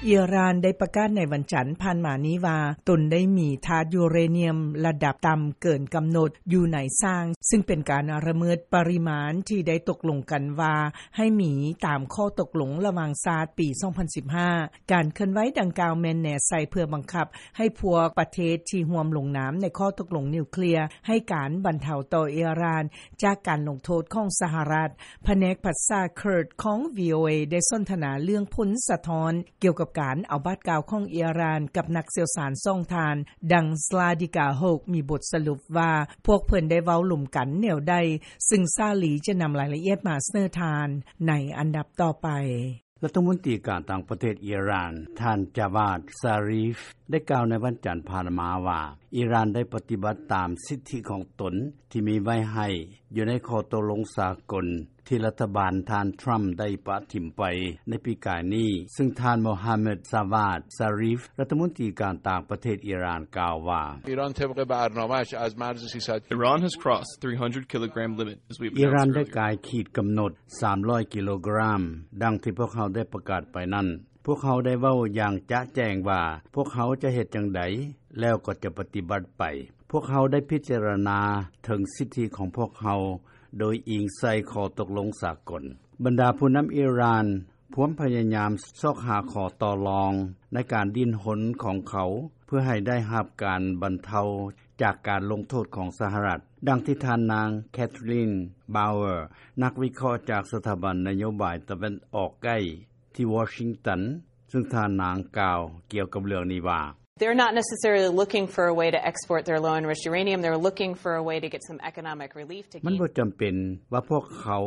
ອີຣານໄດ້ປະກາດໃນວັນຈັນຜ່ານມານີ້ວ່າ ຕົນໄດ້ມີທາດຢູເຣນຽມລະດັບຕ່ຳເກີນກຳນົດຢູ່ໃນຊ່າງ, ຊຶ່ງເປັນການລະເມີດປະລິມານທີ່ໄດ້ຕົກລົງກັນວ່າໃຫ້ມີຕາມຂໍ້ຕົກລົງລະຫວ່າງຊາດປີສອງພັນສິບຫ້າ. ການເຄື່ອນໄຫວດັ່ງກ່າວແມ່ນແນໃສ່ເພື່ອບັງຄັບໃຫ້ພວກປະເທດທີ່ຮ່ວມລົງນາມໃນຂໍ້ຕົກລົງນິວເຄລຍໃຫ້ການບັນເທົາຕໍ່ອີຣານຈາກການລົງໂທດຂອງສະຫະລັດ. ພະແນກພາສາເຄີດຂອງ ວີໂອເອ ໄດ້ສົນທະນາເລື່ອງຜົນສະທ້ອນກ່ຽວກັບການເອົາບາດກ້າວຂອງອີຣານກັບນັກຊ່ຽວຊານສອງທ່ານ, ດັ່ງ Zlatika Hok ມີບົດສະຫຼຸບວ່າ ພວກເພິ່ນໄດ້ເວົ້າລົມກັນແນວໃດ, ຊຶ່ງສາລີຈະນຳລາຍລະອຽດມາສະເໜີທ່ານໃນອັນດັບຕໍ່ໄປ. ລັດຖະມົນຕີການຕ່າງປະເທດອີຣານ ທ່ານ ຈາວາດ ຊາຣີຟ ໄດ້ກ່າວໃນວັນຈັນຜ່ານມາວ່າ ອີຣານໄດ້ປະຕິບັດຕາມສິດທິຂອງຕົນທີ່ມີໄວ້ໃຫ້ຢູ່ໃນຂໍ້ຕົກລົງສາກົນ ທີ່ລັດຖະບານທ່ານທຣຳໄດ້ປະຖິ້ມໄປໃນປີກາຍນີ້, ຊຶ່ງທ່ານ ໂມຮາເມັດ ຈາວາດ ຊາຣີຟ ລັດຖະມົນຕີການຕ່າງປະເທດອີຣານ ກ່າວວ່າ Iran has crossed three hundred kilogram limit, as we ອີຣານ announced ໄດ້ earlier. ກາຍຂີດກຳນົດສາມຮ້ອຍກິໂລກຣາມ ດັ່ງທີ່ພວກເຮົາໄດ້ປະກາດໄປນັ້ນ. ພວກເຮົາໄດ້ເວົ້າຢ່າງຈະແຈ້ງວ່າ ພວກເຮົາຈະເຮັດຈັ່ງໃດ ແລ້ວກໍຈະປະຕິບັດໄປ. ພວກເຮົາໄດ້ພິຈາລະນາເຖິງສິດທິຂອງພວກເຮົາ ໂດຍອີງໃສ່ຂໍ້ຕົກລົງສາກົນ. ບັນດາຜູ້ນຳອີຣານພວມພະຍາຍາມຊອກຫາຂໍ້ຕໍ່ລອງໃນການດີ້ນຮົນຂອງເຂົາ ເພື່ອໃຫ້ໄດ້ຮັບການບັນເທົາຈາກການລົງໂທດຂອງສະຫະລັດ, ດັ່ງທີ່ທ່ານນາງ Kathleen Bower ນັກວິເຄາະຈາກສະຖາບັນນະໂຍບາຍຕາເວັນອອກໃກ້ ທີ່ວໍຊິງຕັນ, ຊຶ່ງທ່ານນາງກ່າວກ່ຽວກັບເລື່ອງນີ້ວ່າ They're not necessarily looking for a way to export their low-enriched uranium. They're looking for a way to get some economic relief to ມັນບໍ່ຈຳເປັນວ່າພວກເຂົາ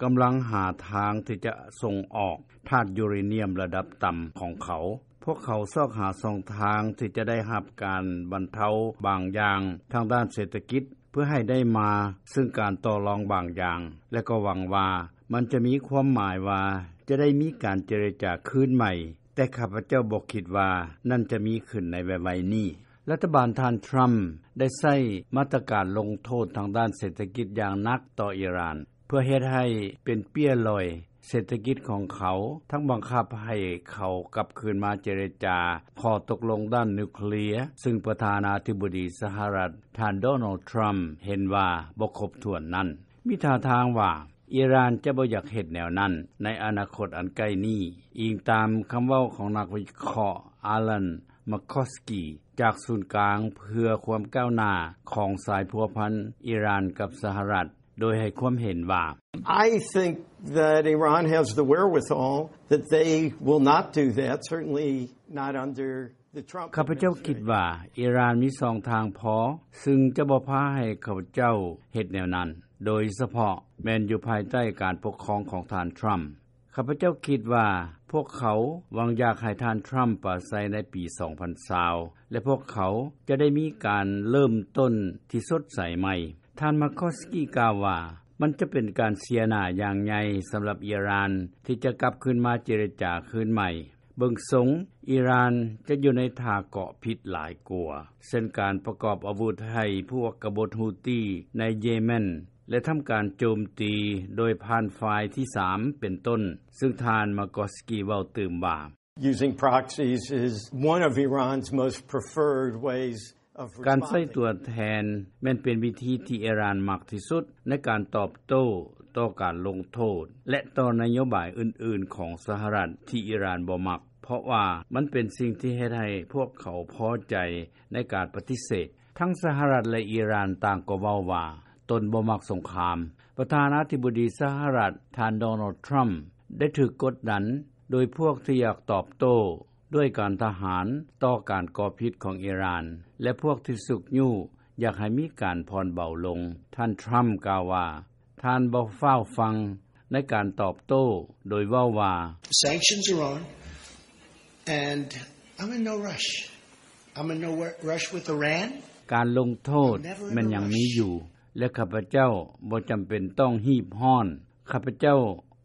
ກຳລັງຫາທາງທີ່ຈະສົ່ງອອກທາດຢູເຣນຽມລະດັບຕ່ຳຂອງເຂົາ. ພວກເຂົາຊອກຫາຊ່ອງທາງທີ່ຈະໄດ້ຮັບການບັນເທົາບາງຢ່າງທາງດ້ານເສດຖະກິດ ເພື່ອໃຫ້ໄດ້ມາເຊິ່ງການຕໍ່ລອງບາງຢ່າງ ແລະ ກໍຫວັງວ່າມັນຈະມີຄວາມໝາຍວ່າຈະໄດ້ມີການເຈລະຈາຄືນໃໝ່, ແຕ່ຂ້າພະເຈົ້າບໍ່ຄິດວ່ານັ້ນຈະມີຂຶ້ນໃນໄວໆນີ້. ລັດຖະບານທ່ານທຣຳໄດ້ໃຊ້ມາດຕະການລົງໂທດທາງດ້ານເສດຖະກິດຢ່າງໜັກຕໍ່ອີຣານ ເພື່ອເຮັດໃຫ້ເປັນເປ້ຍລອຍເສດຖະກິດຂອງເຂົາ, ທັງບັງຄັບໃຫ້ເຂົາກັບຄືນມາເຈລະຈາຂໍ້ຕົກລົງດ້ານນິວເຄລຍ, ຊຶ່ງປະທານາທິບໍດີສະຫະລັດ ທ່ານ ໂດນັລ ທຣຳ ເຫັນວ່າບໍ່ຄົບຖ້ວນນັ້ນ. ມີທ່າທາງວ່າອີຣານຈະບໍ່ຢາກເຮັດແນວນັ້ນໃນອະນາຄົດອັນໃກ້ນີ້, ອີງຕາມຄຳເວົ້າຂອງນັກວິເຄາະ Alan McCoskey ຈາກສູນກາງເພື່ອຄວາມກ້າວໜ້າຂອງສາຍພົວພັນອີຣານກັບສະຫະລັດ, ໂດຍໃຫ້ຄວາມເຫັນວ່າ I think that Iran has the wherewithal, that they will not do that, certainly not under the Trump administration. ຂ້າພະເຈົ້າຄິດວ່າອີຣານມີຊ່ອງທາງພໍ, ຊຶ່ງຈະບໍ່ພາໃຫ້ຂ້າພະເຈົ້າເຮັດແນວນັ້ນ, ໂດຍສະເພາະແມ່ນຢູ່ພາຍໃຕ້ການປົກຄອງຂອງທ່ານທຣຳ. ຂ້າພະເຈົ້າຄິດວ່າພວກເຂົາຫວັງຢາກໃຫ້ທ່ານທຣຳປາໄສໃນປີສອງພັນຊາວ ແລະ ພວກເຂົາຈະໄດ້ມີການເລີ່ມຕົ້ນທີ່ສົດໃສໃໝ່. ທ່ານ McCoskey ກ່າວວ່າ ມັນຈະເປັນການເສຍໜ້າຢ່າງໃຫຍ່ສຳລັບອີຣານທີ່ຈະກັບຄືນມາເຈລະຈາຄືນໃໝ່. ເບິ່ງຊົງອີຣານຈະຢູ່ໃນທ່າເກາະຜິດຫຼາຍກວ່າ, ເຊັ່ນການປະກອບອາວຸດໃຫ້ພວກກະບົດຮູ້ຕີໃນເຢເມັນ ແລະ ທຳການໂຈມຕີໂດຍຜ່ານຝ່າຍທີສາມເປັນຕົ້ນ, ຊຶ່ງທ່ານ McCoskey ເວົ້າຕື່ມວ່າ Using proxies is one of Iran's most preferred ways of responding. ການໃຊ້ຕົວແທນແມ່ນເປັນວິທີທີ່ອີຣານມັກທີ່ສຸດໃນການຕອບໂຕ້ຕໍ່ການລົງໂທດ ແລະ ຕໍ່ນະໂຍບາຍອື່ນໆຂອງສະຫະລັດທີ່ອີຣານບໍ່ມັກ, ເພາະວ່າມັນເປັນສິ່ງທີ່ເຮັດໃຫ້ພວກເຂົາພໍໃຈໃນການປະຕິເສດ. ທັງສະຫະລັດ ແລະ ອີຣານຕ່າງກໍເວົ້າວ່າຕົນບໍ່ມັກສົງຄາມ. ປະທານາທິບໍດີສະຫະລັດ ທ່ານ ໂດນັລ ທຣຳ ໄດ້ຖືກກົດດັນໂດຍພວກທີ່ຢາກຕອບໂຕ້ດ້ວຍການທະຫານຕໍ່ການກໍ່ຜິດຂອງອີຣານ ແລະ ພວກທີ່ຊຸກຍູ້ຢາກໃຫ້ມີການຜ່ອນເບົາລົງ. ທ່ານ ທຣຳ ກ່າວວ່າ ທ່ານບໍ່ຟ້າວຟັ່ງໃນການຕອບໂຕ້ ໂດຍເວົ້າວ່າ Sanctions are on, and I'm in no rush. I'm in no rush with Iran. ການລົງໂທດແມ່ນຍັງມີຢູ່ ແລະ ຂ້າພະເຈົ້າບໍ່ຈຳເປັນຕ້ອງຮີບຮ້ອນ. ຂ້າພະເຈົ້າ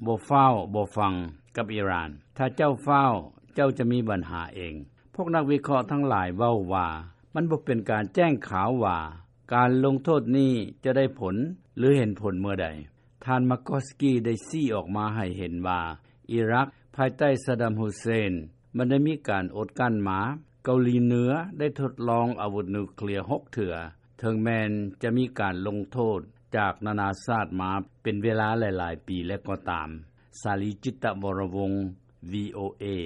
ບໍ່ຟ້າວບໍ່ຟັ່ງກັບອີຣານ. ຖ້າເຈົ້າຟ້າວ, ເຈົ້າຈະມີບັນຫາເອງ. ພວກນັກວິເຄາະທັງຫຼາຍເວົ້າວ່າ ມັນບໍ່ເປັນການແຈ້ງຂາວວ່າການລົງໂທດນີ້ຈະໄດ້ຜົນ ຫຼື ເຫັນຜົນເມື່ອໃດ. ທ່ານ ມາກອສກີ ໄດ້ຊີ້ອອກມາໃຫ້ເຫັນວ່າ ອີຣັກພາຍໃຕ້ ຊາດຳ ຮຸເຊນ ມັນໄດ້ມີການອົດກັ້ນມາ. ເກົາຫຼີເໜືອ ໄດ້ທົດລອງອາວຸດນິວເຄລຍ ຫົກເທື່ອ ເຖິງແມ່ນຈະມີການລົງໂທດ ຈາກນານາຊາດມາ ເປັນເວລາຫຼາຍໆປີແລ້ວກໍຕາມ. ສາລີ ຈິດຕະວໍຣະວົງ ວີໂອເອ.